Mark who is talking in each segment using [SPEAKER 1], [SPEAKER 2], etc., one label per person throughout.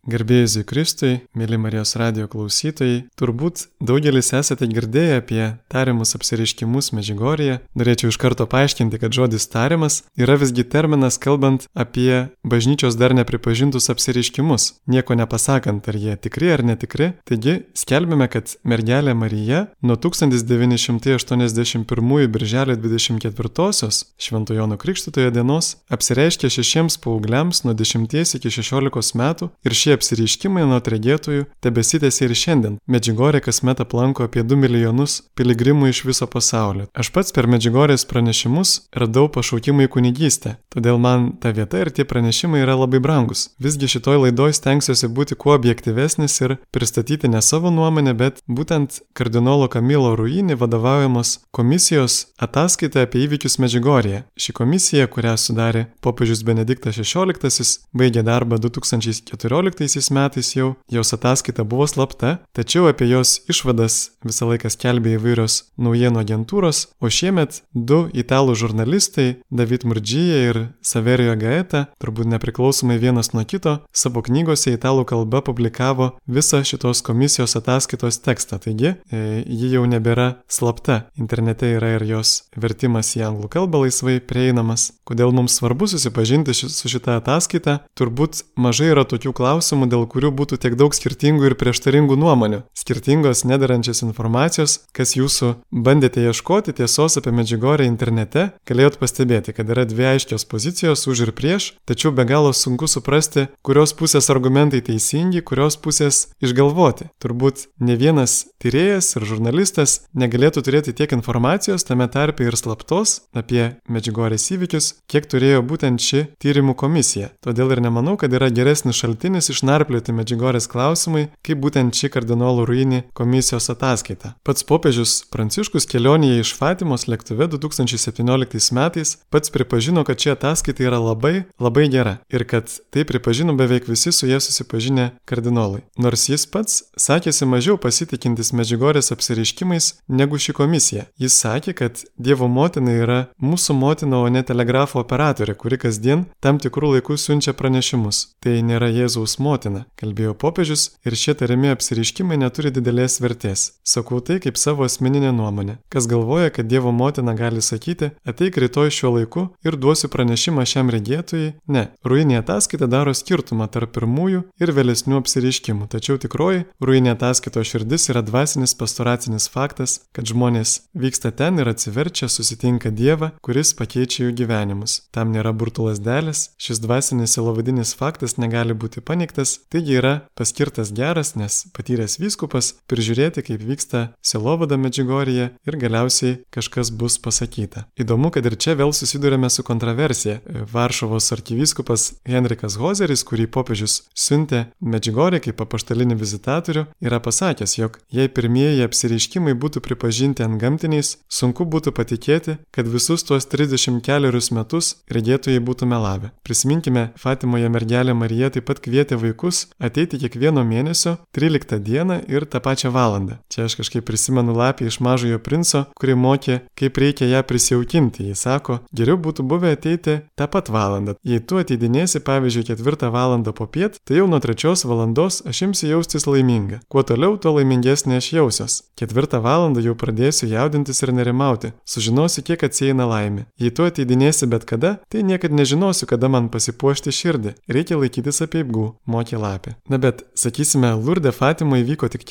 [SPEAKER 1] Garbėjai Kristui, mėly Marijos radijo klausytojai, turbūt daugelis esate girdėję apie tariamus apsireiškimus Medžiugorjėje. Norėčiau iš karto paaiškinti, kad žodis tariamas yra visgi terminas kalbant apie bažnyčios dar nepripažintus apsireiškimus, nieko nepasakant, ar jie tikri ar netikri. Taigi, skelbime, kad mergelė Marija nuo 1981 birželio 24-osios Švento Jono Krikštytojo dienos apsireiškė 6 paaugliams nuo 10 iki 16 metų ir šie apsireiškimai nuo regėtojų tebesitęsia ir šiandien. Medžiugorję kasmet aplanko apie 2 milijonus piligrimų iš viso pasaulio. Aš pats per Medžiugorės pranešimus radau pašaukimą į kunigystę, todėl man ta vieta ir tie pranešimai yra labai brangus. Visgi šitoj laidoj stengsiuosi būti kuo objektyvesnis ir pristatyti ne savo nuomonę, bet būtent kardinolo Kamilo Ruini vadovaujamos komisijos ataskaitą apie įvykius Medžiugorjėje. Ši komisija, kurią sudarė popiežius Benediktas XVI, baigė darbą 2014 metais jau, jos ataskaita buvo slapta, tačiau apie jos išvadas visą laiką skelbė įvairios naujienų agentūros, o šiemet 2 italų žurnalistai, David Murgia ir Saverio Gaeta, turbūt nepriklausomai vienas nuo kito, savo knygose italų kalba publikavo visą šitos komisijos ataskaitos tekstą, taigi ji jau nebėra slapta. Internete yra ir jos vertimas į anglų kalbą laisvai prieinamas. Kodėl mums svarbu susipažinti su šitą ataskaitą? Turbūt mažai yra tokių klausimų, dėl kurių būtų tiek daug skirtingų ir prieštaringų nuomonių. Skirtingos nederančios informacijos, kas jūsų bandėte ieškoti tiesos apie Medžiugorję internete, galėjot pastebėti, kad yra 2 aiškios pozicijos už ir prieš, tačiau be galo sunku suprasti, kurios pusės argumentai teisingi, kurios pusės išgalvoti. Turbūt ne vienas tyrėjas ir žurnalistas negalėtų turėti tiek informacijos, tame tarpe ir slaptos, apie Medžiugorės įvykius, kiek turėjo būtent ši tyrimų komisija. Todėl ir nemanau, kad yra geresnis šaltinis išnarplioti Medžiugorės klausimai, kaip būtent ši kardinolo Ruini komisijos ataskaita. Pats popiežius Pranciškus kelionėje iš Fatimos lėktuve 2017 metais pats pripažino, kad ši ataskaita yra labai gera ir kad tai pripažino beveik visi su jie susipažinę kardinolai. Nors jis pats sakėsi mažiau pasitikintis Medžiugorės apsireiškimais negu ši komisija. Jis sakė, kad Dievo motina yra mūsų motina, o ne telegrafo operatorė, kuri kasdien tam tikrų laikų siunčia pranešimus. Tai nėra Jėzaus motina, kalbėjo popiežius, ir šie tariami apsireiškimai neturi didelės vertės. Sakau tai kaip savo asmeninę nuomonę. Kas galvoja, kad Dievo motina gali sakyti, ateik rytoj šiuo laiku ir duosiu pranešimą šiam regėtojui? Ne. Ruini ataskaita daro skirtumą tarp pirmųjų ir vėlesnių apsireiškimų. Tačiau tikroji Ruini ataskaitos širdis yra dvasinis pastoracinis faktas, kad žmonės vyksta ten ir atsiverčia, susitinka Dievą, kuris pakeičia jų gyvenimus. Tam nėra burtų lazdelės, šis dvasinis sielovadinis faktas negali būti paneigtas, taigi yra paskirtas geras, nes patyręs vyskupas prižiūrėti, kaip vyksta sielovada Medžiugorjėje ir galiausiai kažkas bus pasakyta. Įdomu, kad ir čia vėl susidurėme su kontroversija. Varšuvos arkivyskupas Henrikas Hozeris, kurį popiežius siuntė Medžiugorjėje kaip apaštalinį vizitatorių, yra pasakęs, jog jei pirmieji apsireiškimai būtų pripažinti antgamtiniais, sunku būtų patikėti, kad visus tuos 34 metus regėtojai būtų melavę. Prisiminkime, Fatimoje mergelė Marija taip pat kvietė vaikus ateiti kiekvieno mėnesio 13 dieną ir tą pačią valandą. Čia aš kažkaip prisimenu Lapį iš Mažojo princo, kuri mokė, kaip reikia ją prisijaukinti. Jis sako, geriau būtų buvę ateiti tą pat valandą. Jei tu ateidinėsi, pavyzdžiui, 4 valandą popiet, tai jau nuo 3 valandos aš imsiu jaustis laiminga. Kuo toliau, tuo laimingesnė aš jausiuos. 4 valandą jau pradėsiu jaudintis ir nerimauti. Sužinosiu, kiek atsieina laimė. Jei tu ateidinėsi bet kada, tai niekad nežinosiu, kada man pasipuošti širdį. Reikia laikytis apeigų, mokė Lapė. Na bet, sakysime, Lurde Fatimoje įvyko tik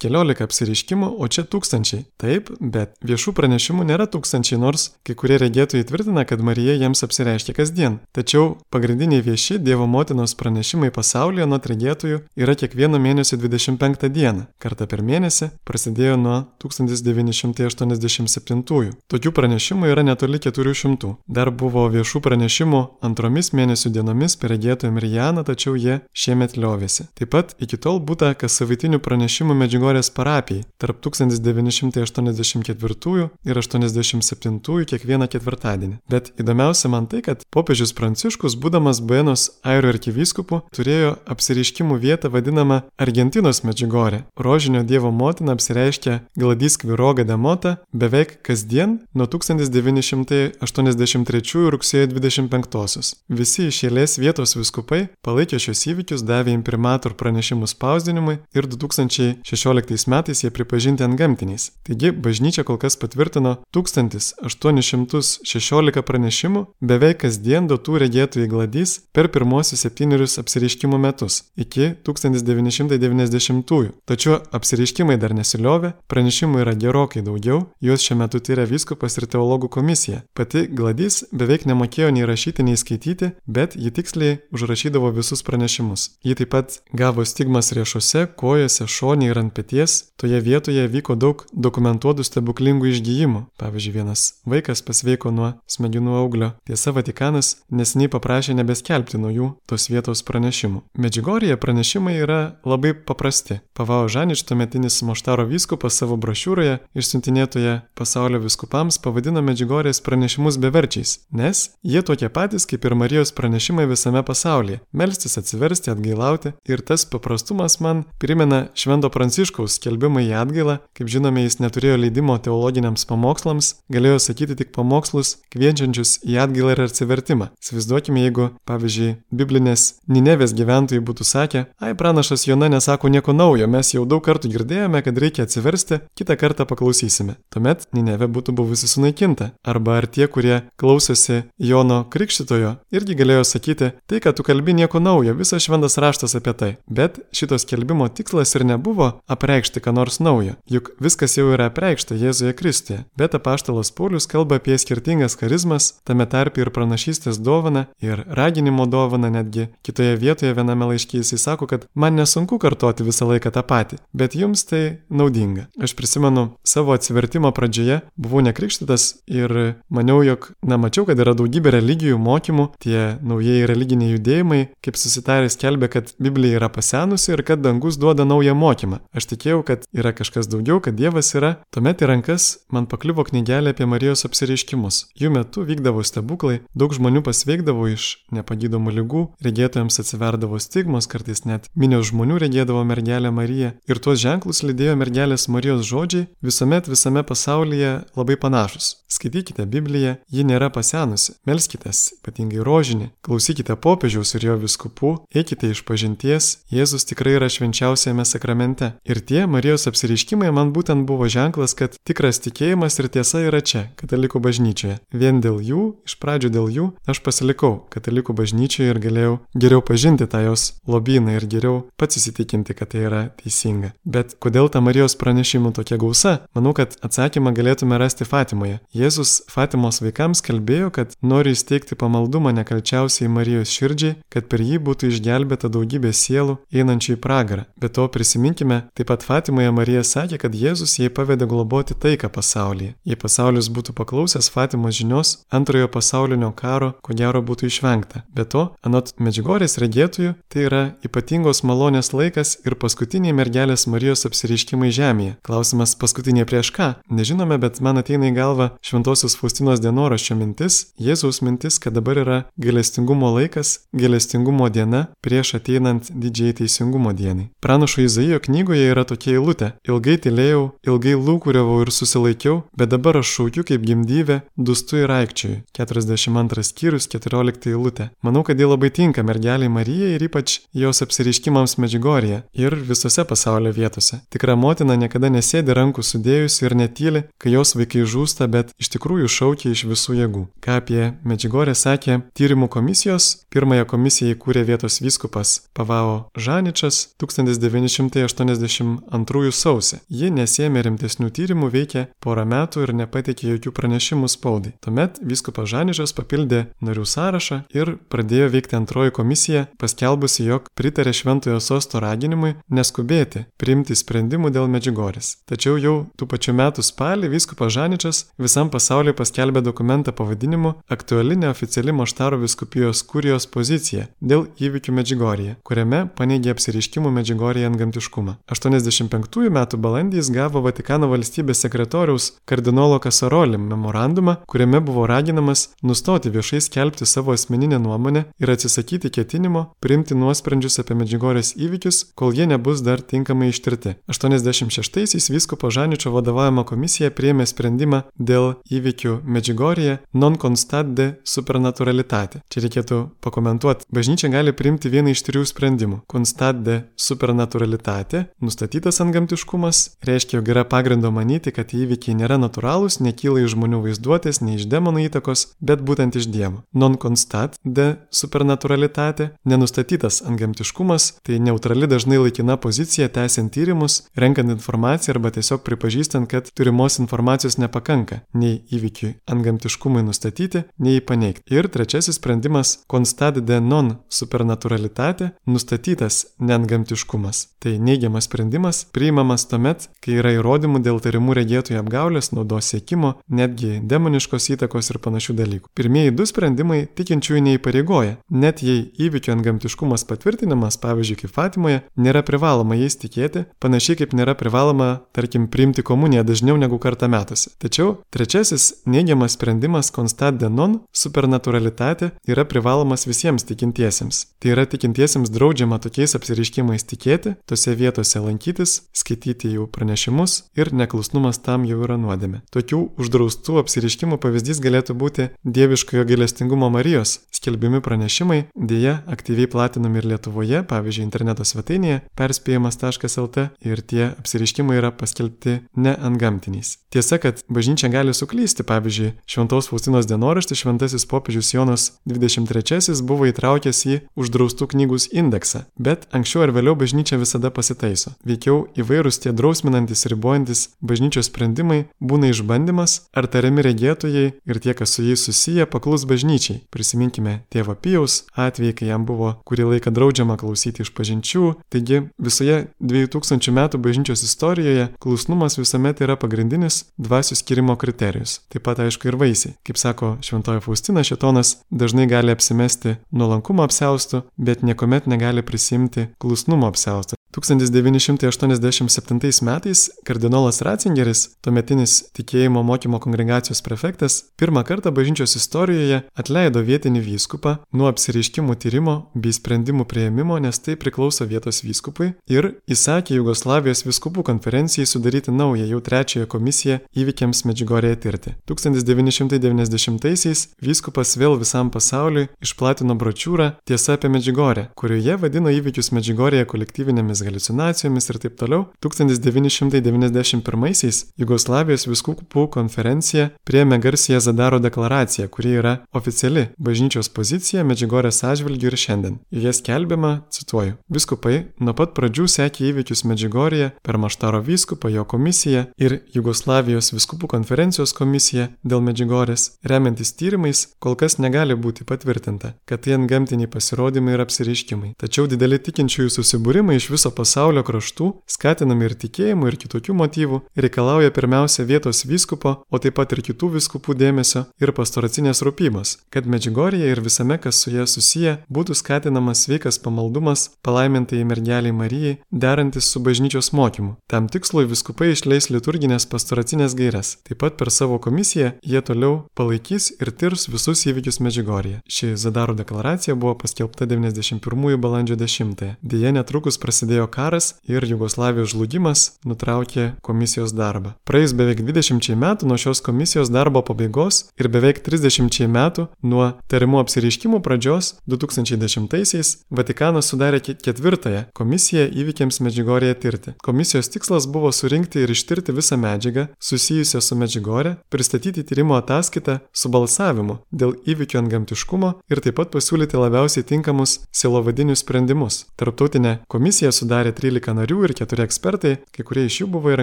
[SPEAKER 1] keliolika apsireiškimų, o čia tūkstančiai. Taip, bet viešų pranešimų nėra tūkstančiai, nors kai kurie regėtojai tvirtina, kad Marija jiems apsireiškia kasdien. Tačiau pagrindiniai vieši Dievo motinos pranešimai pasaulyje nuo regėtojų yra kiekvieno mėnesio 25 dieną. Kartą per mėnesį prasidėjo nuo 1987. Tokių pranešimų yra netoli 400. Dar buvo viešų pranešimų antromis mėnesių dienomis per regėtoją Marijaną, tačiau jie šiemet liovėsi. Taip pat iki tol būta kas savaitinių pranešimų Medžiugorės parapijai tarp 1984 ir 87 kiekvieną ketvirtadienį. Bet įdomiausia man tai, kad popiežius Pranciškus, būdamas Buenos Airių arkivyskupu, turėjo apsireiškimų vietą vadinamą Argentinos Medžiugorė. Rožinio Dievo motina apsireiškia Gladys Kviroga de Mota beveik kasdien nuo 1983 rugsėjo 25. Visi iš eilės vietos viskupai palaikė šios įvykius metus davė imprimatur pranešimus spausdinimui ir 2016 metais jie pripažinti antgamtiniais. Taigi, bažnyčia kol kas patvirtino 1816 pranešimų beveik kasdien duotų regėtojai Gladys per pirmosius 7 apsireiškimų metus iki 1990-ųjų. Tačiau apsireiškimai dar nesiliovė, pranešimų yra gerokai daugiau, juos šiuo metu tyria vyskupas ir teologų komisija. Pati Gladys beveik nemokėjo nei rašyti, nei skaityti, bet ji tiksliai užrašydavo visus pranešimus. Ji taip pat gavo stigmas riešuose, kojose, šone ir ant peties. Toje vietoje vyko daug dokumentuotų stebuklingų išgijimų. Pavyzdžiui, vienas vaikas pasveiko nuo smegenų auglio. Tiesa, Vatikanas neseniai paprašė nebeskelbti naujų tos vietos pranešimų. Medžiugorje pranešimai yra labai paprasti. Pavao Žanič, tuometinis Moštaro vyskupas, savo brošiūroje išsiuntinėtoje pasaulio vyskupams pavadino Medžiugorės pranešimus beverčiais, nes jie tokie patys kaip ir Marijos pranešimai visame pasaulyje – melstis, atsiversti, atgailauti. Ir tas paprastumas man primena Švento Pranciškaus skelbimą į atgailą. Kaip žinome, jis neturėjo leidimo teologiniams pamokslams, galėjo sakyti tik pamokslus kviečiančius į atgailą ir atsivertimą. Įsivaizduokime, jeigu, pavyzdžiui, biblinės Ninevės gyventojai būtų sakę: ai, pranašas Jona nesako nieko naujo, mes jau daug kartų girdėjome, kad reikia atsiversti, kitą kartą paklausysime. Tuomet Ninevė būtų buvusi sunaikinta. Arba ar tie, kurie klausosi Jono Krikštytojo, irgi galėjo sakyti: tai, kad tu kalbi, nieko naujo, visas šventas raštas apie tai. Bet šitos skelbimo tikslas ir nebuvo apreikšti ką nors naujo, juk viskas jau yra apreikšta Jėzuje Kristuje. Bet apaštalas Paulius kalba apie skirtingas charizmas, tame tarpe ir pranašystės dovaną, ir raginimo dovaną. Netgi kitoje vietoje viename laiške jisai sako, kad man nesunku kartoti visą laiką tą patį, bet jums tai naudinga. Aš prisimenu savo atsivertimo pradžioje, buvau nekrikštytas ir maniau, jog, mačiau, kad yra daugybė religijų mokymų, tie naujieji religiniai judėjimai, kaip susitarę skelbia, kad Biblija yra pasenusi ir kad dangus duoda naują mokymą. Aš tikėjau, kad yra kažkas daugiau, kad Dievas yra. Tuomet į rankas man pakliuvo knygelė apie Marijos apsireiškimus. Jų metu vykdavo stebuklai, daug žmonių pasveikdavo iš nepagydomų ligų, regėtojams atsiverdavo stigmos, kartais net minios žmonių regėdavo mergelę Mariją. Ir tuos ženklus lydėjo mergelės Marijos žodžiai, visuomet visame pasaulyje labai panašus. Skaitykite Bibliją, ji nėra pasenusi. Melskitės, ypatingai rožinį, klausykite popiežiaus ir jo vyskupų, eikite išpažinties, Jėzus tikrai yra švenčiausiame sakramente. Ir tie Marijos apsireiškimai man būtent buvo ženklas, kad tikras tikėjimas ir tiesa yra čia, katalikų bažnyčioje. Vien dėl jų, iš pradžių dėl jų, aš pasilikau katalikų bažnyčioje ir galėjau geriau pažinti tą jos lobyną ir geriau pats įsitikinti, kad tai yra teisinga. Bet kodėl ta Marijos pranešimų tokia gausa? Manau, kad atsakymą galėtume rasti Fatimoje. Jėzus Fatimos vaikams kalbėjo, kad nori įsteigti pamaldumą nekalčiausiai Marijos širdžiai, kad per jį būtų išgelbėta daugybė sielų einančių į pragarą. Be to prisiminkime, taip pat Fatimoje Marija sakė, kad Jėzus jai pavedė globoti taiką pasaulyje. Jei pasaulis būtų paklausęs Fatimos žinios, antrojo pasaulinio karo ko gero būtų išvengta. Be to, anot Medžiugorės regėtojų, tai yra ypatingos malonės laikas ir paskutiniai mergelės Marijos apsireiškimai žemėje. Klausimas, paskutiniai prieš ką? Nežinome, bet man ateina į galvą Šventosios Faustinos dienoraščio mintis, Jėzaus mintis, kad dabar yra gailestingumo laikas, gailestingumo diena prieš ateinant didžiai teisingumo dienai. Pranašo Izaijo knygoje yra tokia eilutė: ilgai tylėjau, ilgai lūkuriavau ir susilaikiau, bet dabar aš šaukiu kaip gimdyvė, dūstu ir aikčioju. 42 skyrius, 14 eilutė. Manau, kad ji labai tinka mergeliai Marijai ir ypač jos apsireiškimams Medžiugorje ir visose pasaulio vietose. Tikra motina niekada nesėdi rankų sudėjusi ir netyli, kai jos vaikai žūsta, bet iš tikrųjų šaukia iš visų jėgų. Ką apie Medžiugorę sakė tyrimų komisijos? Pirmąją komisiją įkūrė vietos vyskupas Pavao Žaničas 1982 sausį. Ji nesėmė rimtesnių tyrimų, veikė porą metų ir nepateikė jokių pranešimų spaudai. Tuomet vyskupas Žaničas papildė narių sąrašą ir pradėjo veikti antroji komisija, paskelbusi, jog pritarė Šventojo sosto raginimui neskubėti priimti sprendimų dėl Medžiugorės. Tačiau jau tų pačių metų spalį vyskupas Žaničas visam pasauliu paskelbė dokumentą pavadinimu Aktuali neoficiali Moštaro vyskupijos kurijos pozicija dėl įvykių Medžiugorėje, kuriame paneigė apsireiškimų Medžiugorėje antgamtiškumą. 85 metų balandį jis gavo Vatikano valstybės sekretoriaus kardinolo Kasaroli memorandumą, kuriame buvo raginamas nustoti viešai skelbti savo asmeninę nuomonę ir atsisakyti ketinimo priimti nuosprendžius apie Medžiugorės įvykius, kol jie nebus dar tinkamai ištirti. 86-aisiais vyskupo Žaničio vadovaujama komisija priėmė sprendimą dėl įvykių Medžiugorėje non constat de supernaturalitate. Čia reikėtų pakomentuoti. Bažnyčia gali priimti vieną susidėjimai iš 3 sprendimų. Constat de supernaturalitate, nustatytas antgamtiškumas, reiškia, jog yra pagrindo manyti, kad įvykiai nėra natūralūs, nekyla iš žmonių vaizduotės, nei iš demonų įtakos, bet būtent iš Dievo. Non constat de supernaturalitate, nenustatytas antgamtiškumas, tai neutrali dažnai laikina pozicija tęsiant tyrimus, renkant informaciją arba tiesiog pripažįstant, kad turimos informacijos nepakanka nei įvykiui antgamtiškumui nustatyti, nei jį paneigti. Ir trečiasis sprendimas constat de non supernaturalitate, nustatytas neantgamtiškumas. Tai neigiamas sprendimas priimamas tuomet, kai yra įrodymų dėl tarimų regėtojų apgaulės, naudos siekimo, netgi demoniškos įtakos ir panašių dalykų. Pirmieji 2 sprendimai tikinčiųjų neįpareigoja, net jei įvykio antgamtiškumas patvirtinimas, pavyzdžiui, kaip Fatimoje, nėra privaloma jais tikėti, panašiai kaip nėra privaloma, tarkim, priimti komuniją dažniau negu kartą metuose. Tačiau trečiasis neigiamas sprendimas constat de non supernaturalitate yra privalomas visiems tikintiesiems. Tai yra tikintiesiems draudžiama tokiais apsireiškimais tikėti, tose vietose lankytis, skaityti jų pranešimus ir neklusnumas tam jau yra nuodėmė. Tokių uždraustų apsireiškimų pavyzdys galėtų būti dieviškojo gailestingumo Marijos skelbiami pranešimai, dėja aktyviai platinami ir Lietuvoje, pavyzdžiui, interneto svetainėje perspėjimas.lt, ir tie apsireiškimai yra paskelbti neantgamtiniais. Tiesa, kad bažnyčia gali suklysti, pavyzdžiui, Šventos Faustinos dienoraštį šventasis popiežius Jonas 23 buvo įtraukęs į uždraustų knygų indeksą, bet anksčiau ar vėliau bažnyčia visada pasitaiso. Veikiau įvairūs tie drausminantis, ribojantis bažnyčios sprendimai būna išbandymas, ar tariami regėtojai ir tie, kas su jais susiję, paklus bažnyčiai. Prisiminkime tėvo Pijaus atvejį, kai jam buvo kurį laiką draudžiama klausyti išpažinčių. Taigi visoje 2000 metų bažnyčios istorijoje klusnumas visuomet yra pagrindinis dvasių skyrimo kriterijus. Taip pat aišku ir vaisiai. Kaip sako šventoji Faustina, šėtonas dažnai gali apsimesti nuolankumo apsiaustu, bet niekuomet negali prisimti klusnumo apsiaustu. 1987 metais kardinolas Ratzingeris, tuometinis tikėjimo mokymo kongregacijos prefektas, pirmą kartą bažnyčios istorijoje atleido vietinį vyskupą nuo apsireiškimų tyrimo bei sprendimų priėmimo, nes tai priklauso vietos vyskupui, ir įsakė Jugoslavijos vyskupų konferencijai sudaryti naują, jau 3 komisiją įvykiams Medžiugorėje tirti. 1990-aisiais vyskupas vėl visam pasauliui išplatino brošiūrą Tiesa apie Medžiugorę, kurioje vadino įvykius Medžiugorėje kolektyvinėmis haliucinacijomis ir taip toliau. 1991-aisiais Jugoslavijos vyskupų konferencija priėmė garsiąją Zadaro deklaraciją, kuri yra oficiali bažnyčios pozicija Medžiugorės atžvilgiu ir šiandien. Joje skelbiama, cituoju, vyskupai nuo pat pradžių sekė įvykius Medžiugorėje per Maštaro vyskupą, jo komisiją ir Jugoslavijos vyskupų konferencijos komisiją dėl Medžiugorės. Remiantis tyrimais, kol kas negali būti patvirtinta, kad tai antgamtiniai pasirodymai ir apsireiškimai. Tačiau dideli tikinčiųjų susibūrimai iš viso pasaulio kraštų, skatinami ir tikėjimų, ir kitokių motyvų, reikalauja pirmiausia vietos vyskupo, o taip pat ir kitų vyskupų dėmesio ir pastoracinės rūpybos, kad Medžiugorėje ir visame, kas su ja susiję, būtų skatinamas sveikas pamaldumas palaimintai mergeliai Marijai, derantis su bažnyčios mokymu. Tam tikslui vyskupai išleis liturginės pastoracinės gaires. Taip pat per savo komisiją jie toliau palaikys ir tirs visus įvykius Medžiugorėje. Ši Zadaro deklaracija buvo paskelbta 91 balandžio 10. Deja, netrukus prasidėjo karas ir Jugoslavijos žlugimas nutraukė komisijos darbą. Praėjus beveik 20 metų nuo šios komisijos darbo pabaigos ir beveik 30 metų nuo tarimų apsireiškimų pradžios 2010-aisiais Vatikanas sudarė 4 komisiją įvykiams Medžiugorėje tirti. Komisijos tikslas buvo surinkti ir ištirti visą medžiagą susijusią su Medžiugorė, pristatyti tyrimo ataskaitą su balsavimu dėl įvykių antgamtiškumo ir taip pat pasiūlyti labiausiai tinkamus sielovadinius sprendimus. Tarptautinė komisija sudarė 13 narių ir 4 ekspertai, kai kurie iš jų buvo ir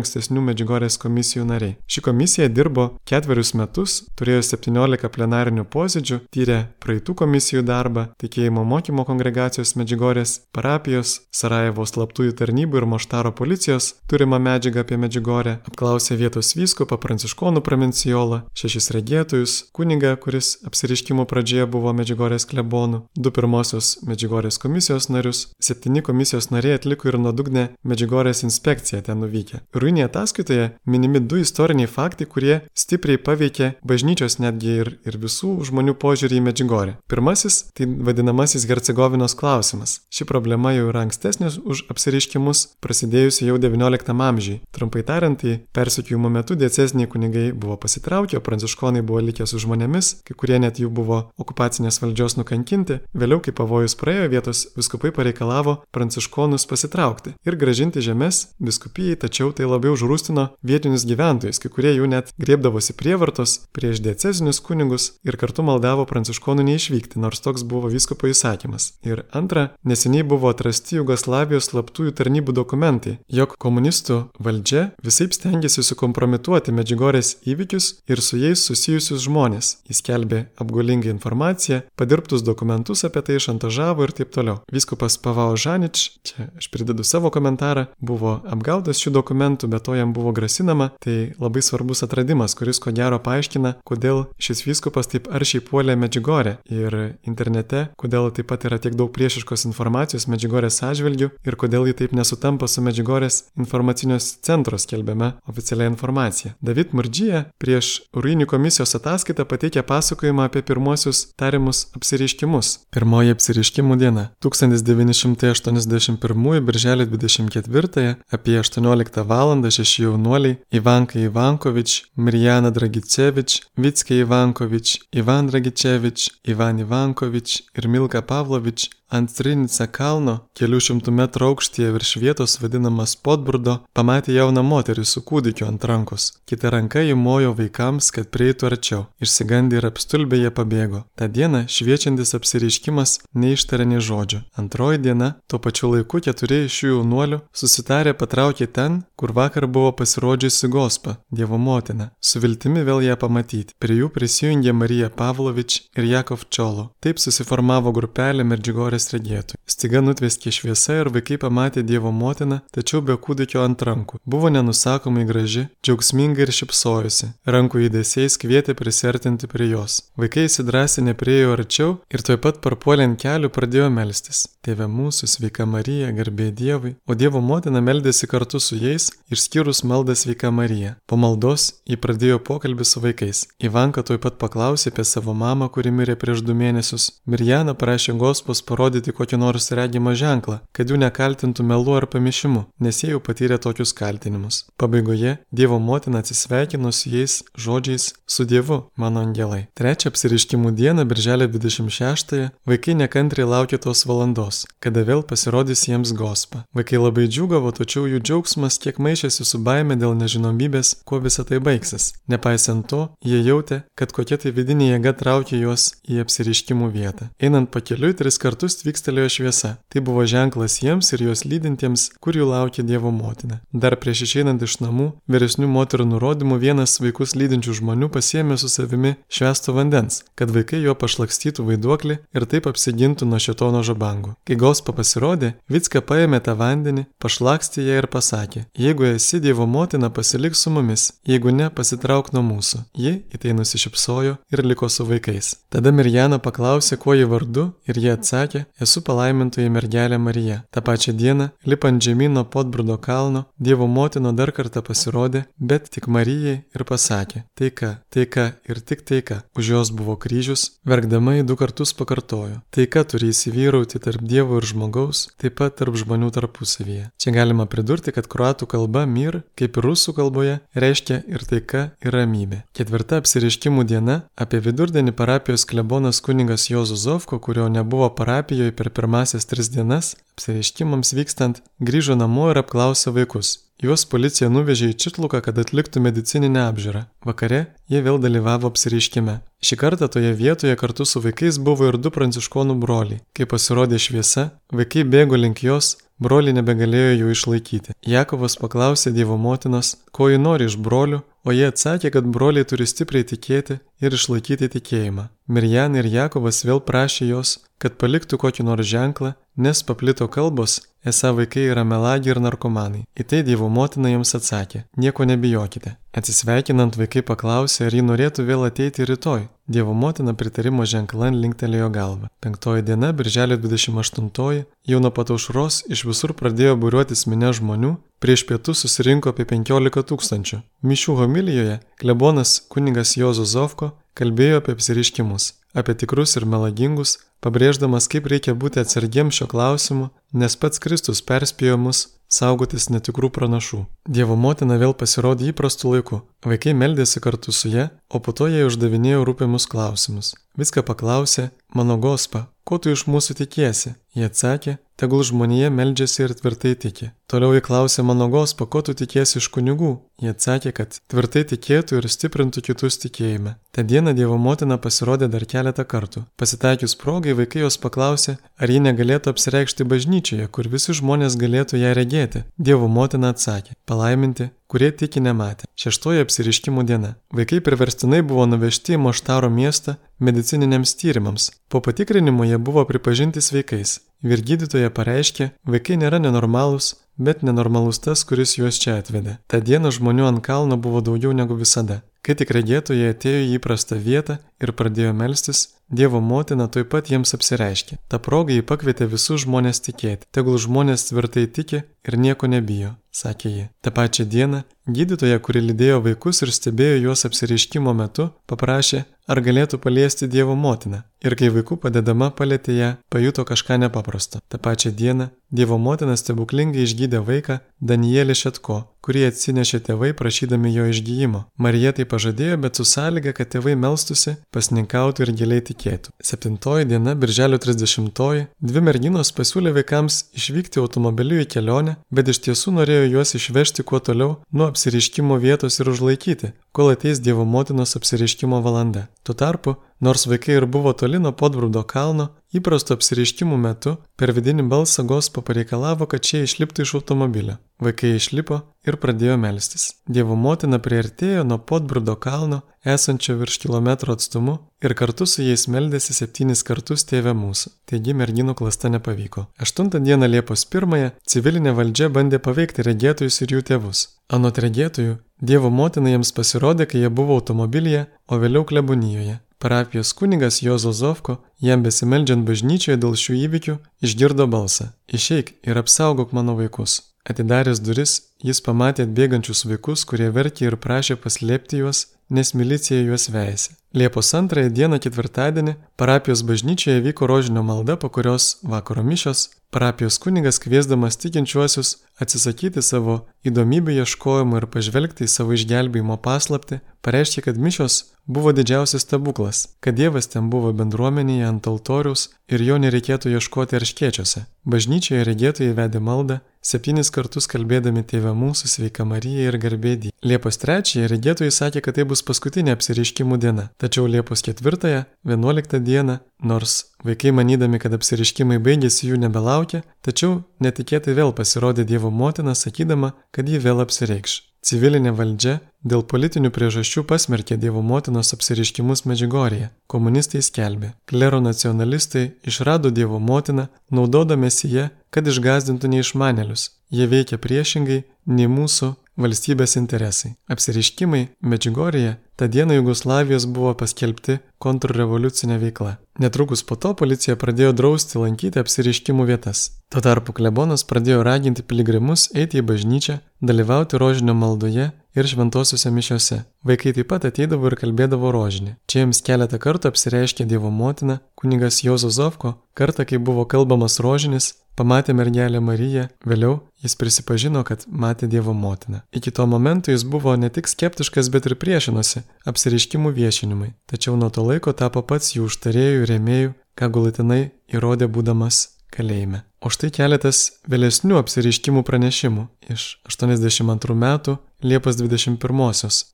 [SPEAKER 1] ankstesnių Medžiugorės komisijų nariai. Ši komisija dirbo 4 metus, turėjo 17 plenarinių posėdžių, tyrė praeitų komisijų darbą, tikėjimo mokymo kongregacijos Medžiugorės, parapijos, Sarajevo slaptųjų tarnybų ir Maštaro policijos turimą medžiagą apie Medžiugorę, apklausė vietos vyskupą, pranciškonų provincijolą, 6 regėtojus, kunigą, kuris apsireiškimų pradžioje buvo Medžiugorės klebonu, 2 pirmosios Medžiugorės komisijos narius, 7 komisijos nariai atliko atliko ir nuodugnę Medžiugorės inspekciją ten nuvykę. Ruinėje ataskaitoje minimi 2 istoriniai faktai, kurie stipriai paveikė bažnyčios netgi ir visų žmonių požiūrį į Medžiugorę. Pirmasis – tai vadinamasis Hercegovinos klausimas. Ši problema jau yra ankstesnės už apsireiškimus, prasidėjusi jau XIX amžiui. Trumpai tariant, tai persekiojimo metu dieceziniai kunigai buvo pasitraukę, o pranciškonai buvo likę su žmonėmis, kai kurie net jų buvo okupacinės valdžios nukankinti. Vėliau, kai pavojus praėjo, vietos vyskupai pareikalavo pranciškonus pasitraukti ir grąžinti žemes vyskupijai, tačiau tai labiau užrūstino vietinius gyventojus, kai kurie jų net griebdavosi prievartos prieš diecezinius kunigus ir kartu maldavo pranciškonų neišvykti, nors toks buvo vyskupo įsakymas. Ir antra, neseniai buvo atrasti Jugoslavijos slaptųjų tarnybų dokumentai, jog komunistų valdžia visaip stengiasi sukompromituoti Medžiugorės įvykius ir su jais susijusius žmonės. Jis skelbė apgaulingą informaciją, padirbtus dokumentus apie tai, šantažavo ir taip toliau. Vyskupas Pavao Žanič, čia aš pridedu savo komentarą, buvo apgautas šių dokumentų, bet to jam buvo grasinama. Tai labai svarbus atradimas, kuris ko gero paaiškina, kodėl šis vyskupas taip aršiai puolė Medžiugorę ir internete, kodėl taip pat yra tiek daug priešiškos informacijos Medžiugorės atžvilgių ir kodėl ji taip nesutampa su Medžiugorės informacinio centro skelbiama oficialia informacija. David Murdžija prieš Ruinių komisijos ataskaitą pateikė pasakojimą apie pirmuosius tariamus apsireiškimus. Pirmoji apsireiškimų diena. 1981 birželio 24 apie 18 val. 6 jaunuoliai Ivanka Ivankovič, Mirjana Dragicevič, Vicke Ivankovič, Ivan Dragicevič, Ivan Ivankovič ir Milka Pavlovič ant Trinica kalno, kelių šimtų metrų aukštyje virš vietos vadinamas Podbrudo, pamatė jauną moterį su kūdikiu ant rankos. Kita ranka jį mojo vaikams, kad prieitų arčiau. Išsigandę ir apstulbę jie pabėgo. Ta diena šviečiantis apsireiškimas neištarė nė žodžio. Antroji diena, tuo pačiu laiku 4 iš šių jaunuolių susitarė patraukė ten, kur vakar buvo pasirodžiusi Gospa, Dievo motina, su viltimi vėl ją pamatyti. Prie jų prisijungė Marija Pavlovič ir Jakov Čolo. Taip susiformavo grupelė Medžiugorės regėtojų. Staiga nutveskė šviesa ir vaikai pamatė Dievo motiną, tačiau be kūdikio ant rankų. Buvo nenusakomai graži, džiaugsminga ir šypsojosi. Rankų judesiais kvietė prisertinti prie jos. Vaikai įsidrąsinę priėjo arčiau ir tuoj pat parpuolė ant kelių pradėjo melstis. Tėve mūsų, sveika Marija, garbė Dievui. O Dievo motina meldėsi kartu su jais, išskyrus maldą sveika Marija. Po maldos ji pradėjo pokalbį su vaikais. Ivanka tuoj pat paklausė apie savo mamą, kuri mirė prieš 2 mėnesius. Mirjana prašė Gospos parodyti kokį nors regimą ženklą, kad jų nekaltintų melu ar pamišimu, nes jie jau patyrė tokius kaltinimus. Pabaigoje Dievo motina atsisveikino su jais žodžiais su Dievu, mano angelai. Trečią apsireiškimų dieną, birželio 26-ąją, vaikai nekantriai laukė tos valandos, kada vėl pasirodys jiems Gospa. Vaikai labai džiūgavo, tačiau jų džiaugsmas kiek maišėsi su baime dėl nežinomybės, kuo visa tai baigsis. Nepaisant to, jie jautė, kad kokia tai vidinė jėga traukė juos į apsireiškimų vietą. Einant pakeliui 3 kartus tvykstelėjo šviesa. Tai buvo ženklas jiems ir juos lydintiems, kur jų laukė Dievo motina. Dar prieš išeinant iš namų, vyresnių moterų nurodymų vienas vaikus lydinčių žmonių pasiėmė su savimi švęsto vandens, kad vaikai jo pašlakstytų vaiduoklį ir taip apsigintų nuo šėtono žabangų. Kai Gospa pasirodė, Vicka paėmė tą vandenį, pašlakstė ją ir pasakė: jeigu esi Dievo motina, pasilik su mumis, jeigu ne, pasitrauk nuo mūsų. Ji į tai nusišypsojo ir liko su vaikais. Tada Mirjana paklausė, kuo ji vardu, ir jie atsakė: esu palaimintoji mergelė Marija. Ta pačią dieną, lipant žemyn nuo Podbrudo kalno, Dievo motina dar kartą pasirodė, bet tik Marijai ir pasakė: taika, taika ir tik taika. Už jos buvo kryžius, verkdama į 2 kartus pakartojo: taika turi įsivyrauti tarp Dievo ir žmogaus, taip pat tarp žmonių tarpusavyje. Čia galima pridurti, kad kroatų kalba mir, kaip ir rusų kalboje, reiškia ir taika, ir ramybė. 4 apsireiškimų diena, apie vidurdienį parapijos klebonas kunigas Juozas Zovko, kurio nebuvo parapijoje per pirmasias 3 dienas, apsireiškimams vykstant, grįžo namo ir apklausė vaikus. Juos policija nuvežė į Čitluką, kad atliktų medicininę apžiūrą. Vakare jie vėl dalyvavo apsireiškime. Šį kartą toje vietoje kartu su vaikais buvo ir 2 pranciškonų broliai. Kai pasirodė šviesa, vaikai bėgo link jos, broliai nebegalėjo jų išlaikyti. Jakovas paklausė Dievo motinos, ko ji nori iš brolių, o jie atsakė, kad broliai turi stipriai tikėti ir išlaikyti tikėjimą. Mirjana ir Jakobas vėl prašė jos, kad paliktų kokį nors ženklą, nes paplito kalbos, esą vaikai yra melagiai ir narkomanai. Į tai Dievo motina jiems atsakė: nieko nebijokite. Atsisveikinant vaikai paklausė, ar ji norėtų vėl ateiti rytoj. Dievo motina pritarimo ženklan linktelėjo galvą. 5 diena, birželio 28, jau nuo pat aušros iš visur pradėjo būriuotis minia žmonių, prieš pietus susirinko apie 15 000. Mišių homilijoje klebonas kunigas Juozo Zovko kalbėjo apie apsireiškimus, apie tikrus ir melagingus, pabrėždamas, kaip reikia būti atsargiems šio klausimu, nes pats Kristus perspėjo mus saugotis netikrų pranašų. Dievo motina vėl pasirodė įprastu laiku. Vaikai meldėsi kartu su ja, o po to jai uždavinėjo rūpimus klausimus. Viską paklausė: mano Gospa, ko tu iš mūsų tikiesi? Jie atsakė: tegul žmonija meldžiasi ir tvirtai tiki. Toliau jie klausė: mano Gospa, ko tu tikiesi iš kunigų? Jie atsakė, kad tvirtai tikėtų ir stiprintų kitus tikėjime. Ta diena Dievo motina pasirodė dar keletą kartų. Pasitaikius progai, vaikai jos paklausė, ar ji negalėtų apsireikšti bažnyčioje, kur visi žmonės galėtų ją regėti. Dievo motina atsakė: palaiminti, kurie tiki nematė. 6 apsireiškimų diena. Vaikai priverstinai buvo nuvežti į Moštaro miestą medicininiams tyrimams. Po patikrinimo jie buvo pripažinti sveikais. Vyrgydytoja pareiškė, vaikai nėra nenormalūs, bet nenormalus tas, kuris juos čia atvedė. Ta diena žmonių ant kalno buvo daugiau negu visada. Kai tik regėtojai atėjo į įprastą vietą ir pradėjo melstis, Dievo motina tuoj pat jiems apsireiškė. Ta proga jį pakvietė visus žmonės tikėti. Tegul žmonės tvirtai tiki ir nieko nebijo, sakė ji. Ta pačią dieną gydytoja, kuri lydėjo vaikus ir stebėjo juos apsireiškimo metu, paprašė, ar galėtų paliesti Dievo motiną. Ir kai vaikų padedama palietė ją, pajuto kažką nepaprasto. Ta pačią dieną Dievo motina stebuklingai išgydė vaiką Danielį Šetko, kurį atsinešė tėvai prašydami jo išgyjimo. Marija tai pažadėjo, bet su sąlyga, kad tėvai melstusi, pasninkautų ir giliai tikėtų. 7 diena, birželio 30, dvi merginos pasiūlė vaikams išvykti automobiliu į kelionę, bet iš tiesų norėjo juos išvežti kuo toliau nuo apsireiškimo vietos ir užlaikyti, kol ateis Dievo motinos apsireiškimo valanda. Tuo tarpu, nors vaikai ir buvo toli nuo Podbrūdo kalno, įprasto apsireiškimų metu per vidinį balsą Gospa pareikalavo, kad šie išliptų iš automobilio. Vaikai išlipo ir pradėjo melstis. Dievo motina priartėjo nuo Podbrūdo kalno, esančio virš kilometro atstumu, ir kartu su jais meldėsi 7 kartus Tėve mūsų. Taigi merginų klasta nepavyko. 8 dieną Liepos 1 civilinė valdžia bandė paveikti regėtojus ir jų tėvus. Anot regėtojų, Dievo motina jiems pasirodė, kai jie buvo automobilyje, o vėliau klebonijoje. Parapijos kunigas Juozo Zovko, jam besimeldžiant bažnyčioje dėl šių įvykių, išgirdo balsą: išeik ir apsaugok mano vaikus. Atidaręs duris, jis pamatė atbėgančius vaikus, kurie verkė ir prašė paslėpti juos, nes milicija juos veisė. Liepos 2 dieną, ketvirtadienį, parapijos bažnyčioje vyko rožinio malda, po kurios vakaro mišios parapijos kunigas, kviesdamas tikinčiuosius atsisakyti savo įdomybių ieškojimų ir pažvelgti į savo išgelbėjimo paslaptį, pareiškė, kad mišios buvo didžiausias stebuklas, kad Dievas ten buvo bendruomenėje ant altoriaus ir jo nereikėtų ieškoti erškėčiuose. Bažnyčioje regėtojai vedė maldą, 7 kartus kalbėdami Tėve mūsų, Sveika Marija ir Garbė Dievui. Liepos 3 regėtojai sakė, kad tai bus paskutinė apsireiškimų diena. Tačiau Liepos 4, 11 dieną, nors vaikai manydami, kad apsireiškimai baigėsi, jų nebelaukia, tačiau netikėtai vėl pasirodė Dievo motina, sakydama, kad ji vėl apsireikš. Civilinė valdžia dėl politinių priežasčių pasmerkė Dievo motinos apsireiškimus Medžiugorėje. Komunistai skelbė, klero nacionalistai išrado Dievo motiną, naudodamiesi ją, kad išgąsdintų neišmanėlius. Jie veikia priešingai nei mūsų valstybės interesai. Apsireiškimai Medžiugorėje tą dieną Jugoslavijos buvo paskelbti kontrrevoliucinė veikla. Netrukus po to policija pradėjo drausti lankyti apsireiškimų vietas. Tuo tarpu klebonas pradėjo raginti piligrimus eiti į bažnyčią, dalyvauti rožinio maldoje ir šventosiuose mišiose. Vaikai taip pat ateidavo ir kalbėdavo rožinį. Čia jiems keletą kartų apsireiškė Dievo motina, kunigas Juozo Zovko, kartą, kai buvo kalbamas rožinis, pamatė mergelę Mariją, vėliau jis prisipažino, kad matė Dievo motiną. Iki to momento jis buvo ne tik skeptiškas, bet ir priešinosi apsireiškimų viešinimui. Tačiau nuo to laiko tapo pats jų užtarėjų ir rėmėjų, ką galutinai įrodė būdamas kalėjime. O štai keletas vėlesnių apsireiškimų pranešimų iš 82 metų Liepos 21.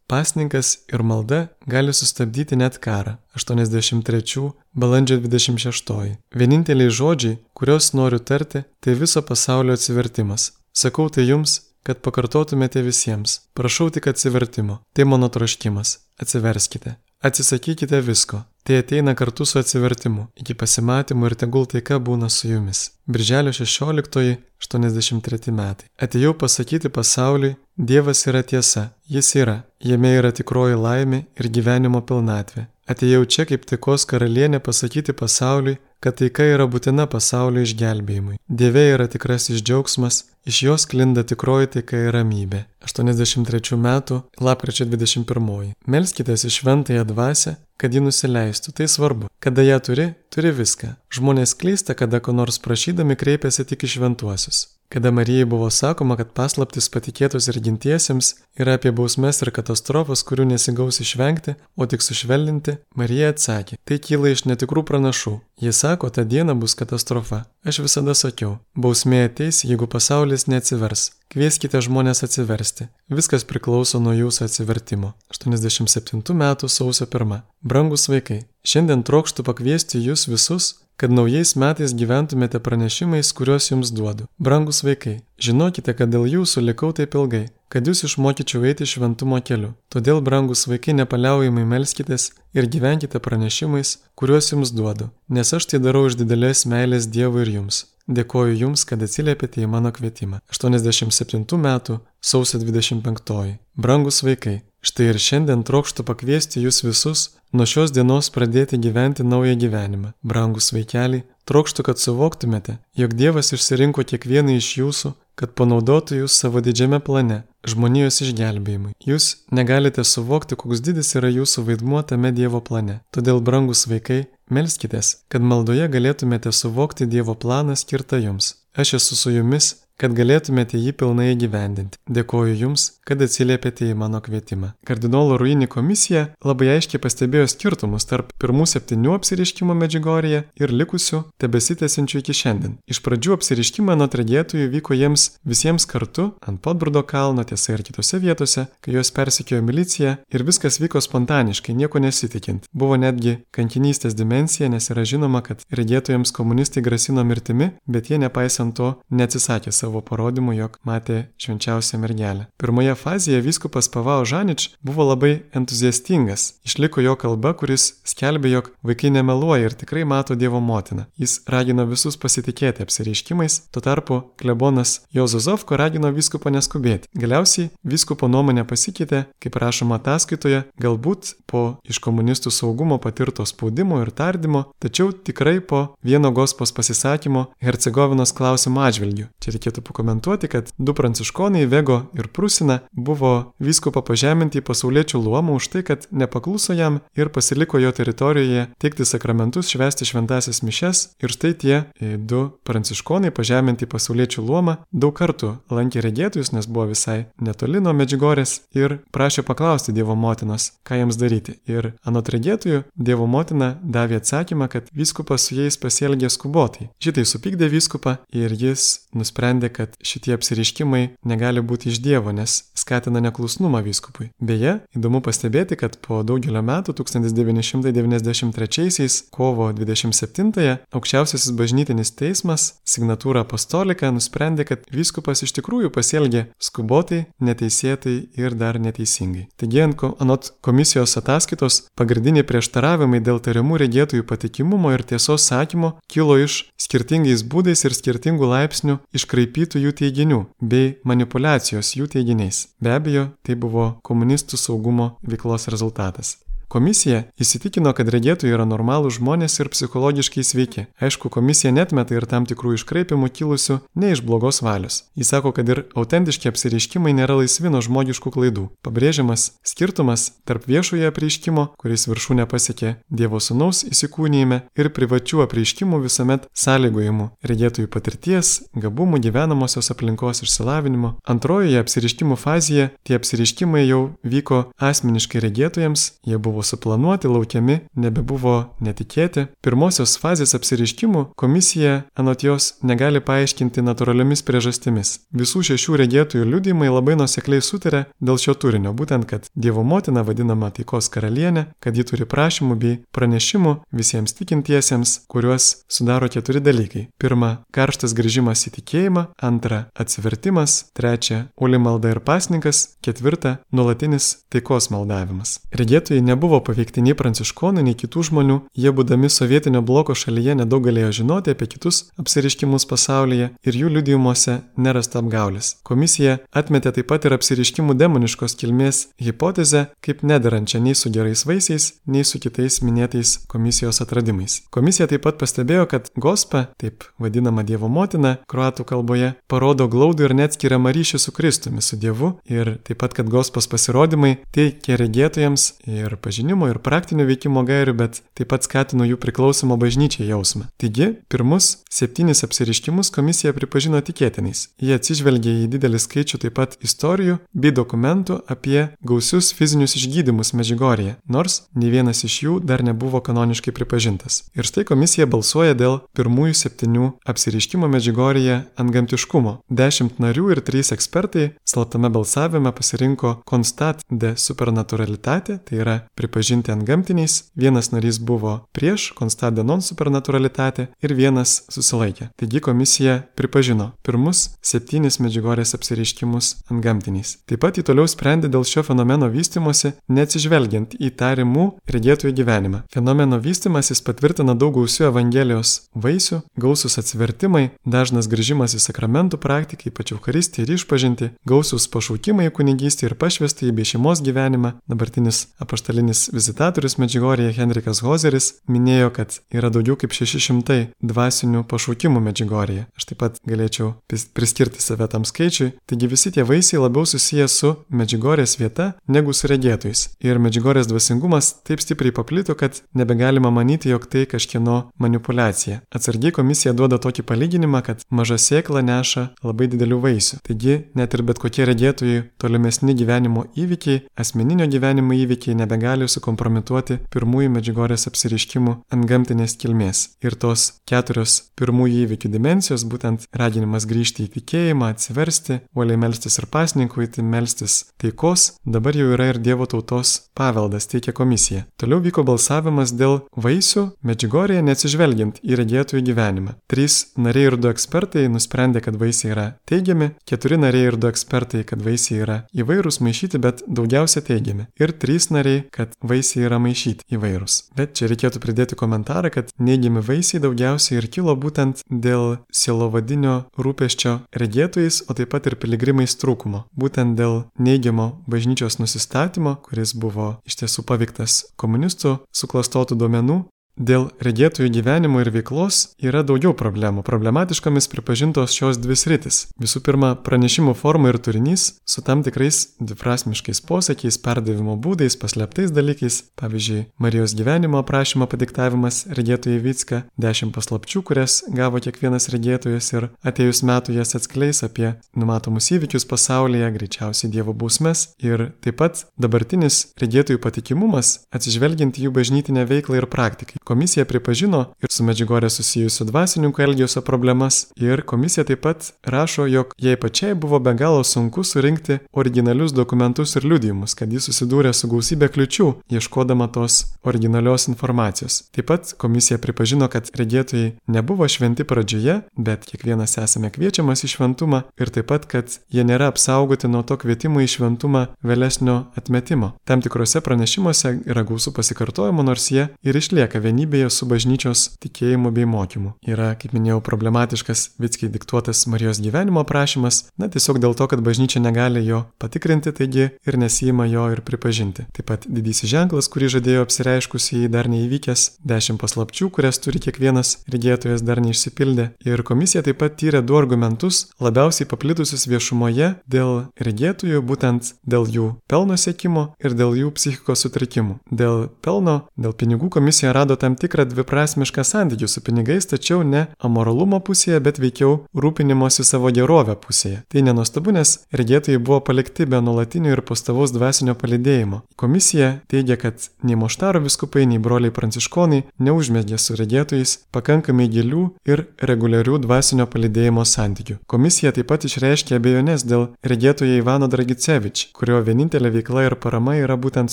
[SPEAKER 1] Pasninkas ir malda gali sustabdyti net karą. 83 balandžio 26. Vieninteliai žodžiai, kuriuos noriu tarti, tai viso pasaulio atsivertimas. Sakau tai jums, kad pakartotumėte visiems. Prašau tik atsivertimo. Tai mano troškimas. Atsiverskite. Atsisakykite visko. Tai ateina kartu su atsivertimu, iki pasimatymo ir tegul taika būna su jumis. Birželio 16-83 metai. Atėjau pasakyti pasauliui, Dievas yra tiesa, Jis yra, jame yra tikroji laimė ir gyvenimo pilnatvė. Atėjau čia kaip taikos karalienė pasakyti pasauliui, kad taika yra būtina pasaulio išgelbėjimui. Dieve yra tikrasis džiaugsmas, iš jos sklinda tikroji taika ir ramybė. 83 metų, lapkričio 21. Melskitės į šventąją dvasią, kad ji nusileistų. Tai svarbu. Kada ją turi viską. Žmonės klysta, kada ko nors prašydami kreipiasi tik į šventuosius. Kada Marijai buvo sakoma, kad paslaptis patikėtos ir gintiesiems yra apie bausmes ir katastrofas, kurių nesigaus išvengti, o tik sušvelninti, Marija atsakė, tai kyla iš netikrų pranašų. Jie sako, ta diena bus katastrofa. Aš visada sakiau, bausmė ateis, jeigu pasaulis neatsivers. Kvieskite žmonės atsiversti. Viskas priklauso nuo jūsų atsivertimo. 87 metų sausio 1. Brangus vaikai, šiandien trokštu pakviesti jūs visus, kad naujais metais gyventumėte pranešimais, kuriuos jums duodu. Brangus vaikai, žinokite, kad dėl jūsų likau taip ilgai, kad jūs išmokyčiau eiti šventumo keliu. Todėl, brangus vaikai, nepaliaujamai melskitės ir gyvenkite pranešimais, kuriuos jums duodu, nes aš tai darau iš didelės meilės Dievui ir jums. Dėkoju jums, kad atsiliepėte į mano kvietimą. 87 metų sausio 25. Brangus vaikai, štai ir šiandien trokštu pakviesti jūs visus nuo šios dienos pradėti gyventi naują gyvenimą. Brangus vaikeliai, trokštu, kad suvoktumėte, jog Dievas išsirinko kiekvieną iš jūsų, kad panaudotų jūs savo didžiame plane, žmonijos išgelbėjimui. Jūs negalite suvokti, koks didis yra jūsų vaidmuo tame Dievo plane. Todėl, brangus vaikai, melskitės, kad maldoje galėtumėte suvokti Dievo planą skirtą jums. Aš esu su jumis, kad galėtumėte jį pilnai įgyvendinti. Dėkoju jums, kad atsiliepėte į mano kvietimą. Kardinolo Ruini komisija labai aiškiai pastebėjo skirtumus tarp pirmų 7 apsireiškimų Medžiugorjėje ir likusių tebesitęsiančių iki šiandien. Iš pradžių apsireiškimai anot regėtojų vyko jiems visiems kartu ant Podbrudo kalno, tiesa ir kitose vietose, kai juos persekiojo milicija ir viskas vyko spontaniškai, nieko nesitikint. Buvo netgi kankinystės dimensija, nes yra žinoma, kad regėtojams komunistai grasino mirtimi, bet jie nepaisant to neatsisakė savo parodymų, jog matė švenčiausią mergelę. Pirmoje fazėje vyskupas Pavao Žanič buvo labai entuziastingas. Išliko jo kalba, kuris skelbė, jog vaikai nemeluoja ir tikrai mato Dievo motiną. Jis ragino visus pasitikėti apsireiškimais, tuo tarpu klebonas Juozo Zovko ragino vyskupą neskubėti. Galiausiai vyskupo nuomonė pasikeitė, kaip rašoma ataskaitoje, galbūt po iš komunistų saugumo patirto spaudimo ir tardymo, tačiau tikrai po vieno gospos pasisakymo Hercegovinos klausimo atžvilgiu. Čia reikėtų pakomentuoti, kad 2 pranciškonai, Vego ir Prusina, buvo vyskupo pažeminti į pasauliečių luomą už tai, kad nepakluso jam ir pasiliko jo teritorijoje teikti sakramentus, švęsti šventąsias mišias. Ir štai tie 2 pranciškonai pažeminti į pasauliečių luomą daug kartų lankė regėtojus, nes buvo visai netoli nuo Medžiugorės ir prašė paklausti Dievo motinos, ką jiems daryti. Ir anot regėtojų, Dievo motina davė atsakymą, kad vyskupas su jais pasielgė skubotai. Šitai supykdė vyskupą ir jis nusprendė, kad šitie apsireiškimai negali būti iš Dievo, nes skatina neklusnumą vyskupui. Beje, įdomu pastebėti, kad po daugelio metų 1993 kovo 27-ąją aukščiausiasis bažnytinis teismas signatūra apostolika nusprendė, kad vyskupas iš tikrųjų pasielgė skubotai, neteisėtai ir dar neteisingai. Taigi, anot komisijos ataskaitos, pagrindiniai prieštaravimai dėl tariamų regėtojų patikimumo ir tiesos sakymo kilo iš skirtingais būdais ir skirtingų laipsnių iškraipytų jų teiginių bei manipulacijos jų teiginiais. Be abejo, tai buvo komunistų saugumo veiklos rezultatas. Komisija įsitikino, kad regėtojai yra normalūs žmonės ir psichologiškai sveiki. Aišku, komisija netmeta ir tam tikrų iškraipimų kilusių ne iš blogos valios. Jis sako, kad ir autentiški apsireiškimai nėra laisvi nuo žmogiškų klaidų. Pabrėžiamas skirtumas tarp viešojo apreiškimo, kuris viršūnę pasiekė Dievo Sūnaus įsikūnijime, ir privačių apreiškimų visuomet sąlygojimų regėtojų patirties, gabumų, gyvenamosios aplinkos išsilavinimo. Antrojoje apsireiškimų fazėje tie apsireiškimai jau vyko asmeniškai regėtojams, jie buvo suplanuoti, laukiami, nebebuvo netikėti. Pirmosios fazės apsireiškimų komisija anot jos negali paaiškinti natūraliomis priežastimis. Visų 6 regėtojų liudijimai labai nuosekliai sutarė dėl šio turinio, būtent, kad Dievo motina vadinama taikos karalienė, kad ji turi prašymų bei pranešimų visiems tikintiesiems, kuriuos sudaro 4 dalykai. 1. Karštas grįžimas į tikėjimą. 2. Atsivertimas. 3. Uoli malda ir pasninkas. 4. Nuolatinis taikos maldavimas. Regėtojai nebuvo nebuvo paveikti nei pranciškonų, nei kitų žmonių, jie būdami sovietinio bloko šalyje nedaug galėjo žinoti apie kitus apsireiškimus pasaulyje ir jų liudijimuose nerasta apgaulės. Komisija atmetė taip pat ir apsireiškimų demoniškos kilmės hipotezę kaip nederančią nei su gerais vaisiais, nei su kitais minėtais komisijos atradimais. Komisija taip pat pastebėjo, kad Gospa, taip vadinama Dievo motina kroatų kalboje, parodo glaudų ir neatskiriamą ryšį su Kristumi, su Dievu ir taip pat, kad Gospos pasirodymai teikia regėtojams ir pažinimo, ir praktinio veikimo gairių, bet taip pat skatino jų priklausomą bažnyčiai jausmą. Taigi, pirmus 7 apsireiškimus komisija pripažino tikėtinais. Jie atsižvelgė į didelį skaičių taip pat istorijų bei dokumentų apie gausius fizinius išgydymus Medžiugorjėje, nors nei vienas iš jų dar nebuvo kanoniškai pripažintas. Ir štai komisija balsuoja dėl pirmųjų 7 apsireiškimo Medžiugorjėje antgamtiškumo. 10 narių ir 3 ekspertai slaptame balsavime pasirinko constat de supernaturalitate, tai yra pripažinti antgamtiniais. Vienas narys buvo prieš constat de non supernaturalitate ir vienas susilaikė. Taigi komisija pripažino pirmus 7 Medžiugorjės apsireiškimus antgamtiniais. Taip pat jį toliau sprendė dėl šio fenomeno vystymosi, neatsižvelgiant į tariamų regėtojų gyvenimą. Fenomeno vystymasis patvirtina daug gausių Evangelijos vaisių, gausūs atsivertimai, dažnas grįžimas į sakramentų praktiką, ypač Eucharistiją ir išpažintį, gausūs pašaukimai į kunigystę ir pašvestąjį bei šeimos gyvenimą. Dabartinis apaštalinis vizitatorius Medžiugorjėje Henrikas Hozeris minėjo, kad yra daugiau kaip 600 dvasinių pašaukimų Medžiugorjėje. Aš taip pat galėčiau priskirti save tam skaičiui. Taigi visi tie vaisiai labiau susiję su Medžiugorjės vieta negu su regėtojais. Ir Medžiugorjės dvasingumas taip stipriai paplito, kad nebegalima manyti, jog tai kažkieno manipulacija. Atsargiai komisija duoda tokį palyginimą, kad maža sėkla neša labai didelių vaisių. Taigi net ir bet kokie regėtojai tolimesni gyvenimo įvykiai, asmeninio gyvenimo įvykiai nebegali sukompromituoti pirmųjų Medžiugorjės apsireiškimų antgamtinės kilmės. Ir tos 4 pirmųjų įvykių dimensijos, būtent raginimas grįžti į tikėjimą, atsiversti, uoliai melstis ir pasninkauti, melstis taikos, dabar jau yra ir Dievo tautos paveldas, teikia komisija. Toliau vyko balsavimas dėl vaisių Medžiugorjėje neatsižvelgiant į regėtojų gyvenimą. 3 nariai ir 2 ekspertai nusprendė, kad vaisiai yra teigiami, 4 nariai ir 2 ekspertai, kad vaisiai yra įvairūs, maišyti, bet daugiausia teigiami. Ir 3 nariai, kad vaisiai yra maišyti įvairūs. Bet čia reikėtų pridėti komentarą, kad neigiami vaisiai daugiausiai ir kilo būtent dėl sielovadinio rūpesčio regėtojais, o taip pat ir piligrimais trūkumo. Būtent dėl neigiamo bažnyčios nusistatymo, kuris buvo iš tiesų paveiktas komunistų suklastotų duomenų. Dėl regėtojų gyvenimo ir veiklos yra daugiau problemų. Problematiškomis pripažintos šios 2 sritis. Visų pirma, pranešimų forma ir turinys su tam tikrais dviprasmiškais posakiais, perdavimo būdais, paslėptais dalykais. Pavyzdžiui, Marijos gyvenimo aprašymo padiktavimas regėtojai Vicka, 10 paslapčių, kurias gavo kiekvienas regėtojas ir atėjus metų jas atskleis apie numatomus įvykius pasaulyje, greičiausiai Dievo bausmes. Ir taip pat dabartinis regėtojų patikimumas, atsižvelgiant į jų bažnytinę veiklą ir praktiką. Komisija pripažino ir su Medžiugorje susijusių dvasininkų elgesio problemas ir komisija taip pat rašo, jog jai pačiai buvo be galo sunku surinkti originalius dokumentus ir liudijimus, kad jis susidūrė su gausybė kliučių, ieškodama tos originalios informacijos. Taip pat komisija pripažino, kad regėtojai nebuvo šventi pradžioje, bet kiekvienas esame kviečiamas į šventumą ir taip pat, kad jie nėra apsaugoti nuo to kvietimo į šventumą vėlesnio atmetimo. Tam tikrose pranešimuose yra gausų pasikartojimų, nors jie ir išlieka vienybėje su bažnyčios tikėjimu bei mokymu. Yra, kaip minėjau, problematiškas Vickai diktuotas Marijos gyvenimo aprašymas, tiesiog dėl to, kad bažnyčia negali jo patikrinti, taigi ir nesijima jo ir pripažinti. Taip pat didysis ženklas, kurį žadėjo apsireiškusiai dar neįvykęs, 10 paslapčių, kurias turi kiekvienas regėtojas dar neišsipildė. Ir komisija taip pat tyrė 2 argumentus, labiausiai paplitusius viešumoje dėl regėtojų, būtent dėl jų pelno siekimo ir dėl jų psichikos sutrikimų. Dėl pelno, dėl pinigų komisija rado tam tikrą dviprasmišką santykių su pinigais, tačiau ne amoralumo pusėje, bet veikiau rūpinimosi savo gerovę pusėje. Tai nenuostabu, nes regėtojai buvo palikti be nuolatinio ir pastovaus dvasinio palydėjimo. Komisija teigia, kad nei Moštaro vyskupai, nei broliai pranciškonai neužmezgė su regėtojais pakankamai gilių ir reguliarių dvasinio palydėjimo santykių. Komisija taip pat išreiškė abejonės dėl regėtojo Ivano Dragicevič, kurio vienintelė veikla ir parama yra būtent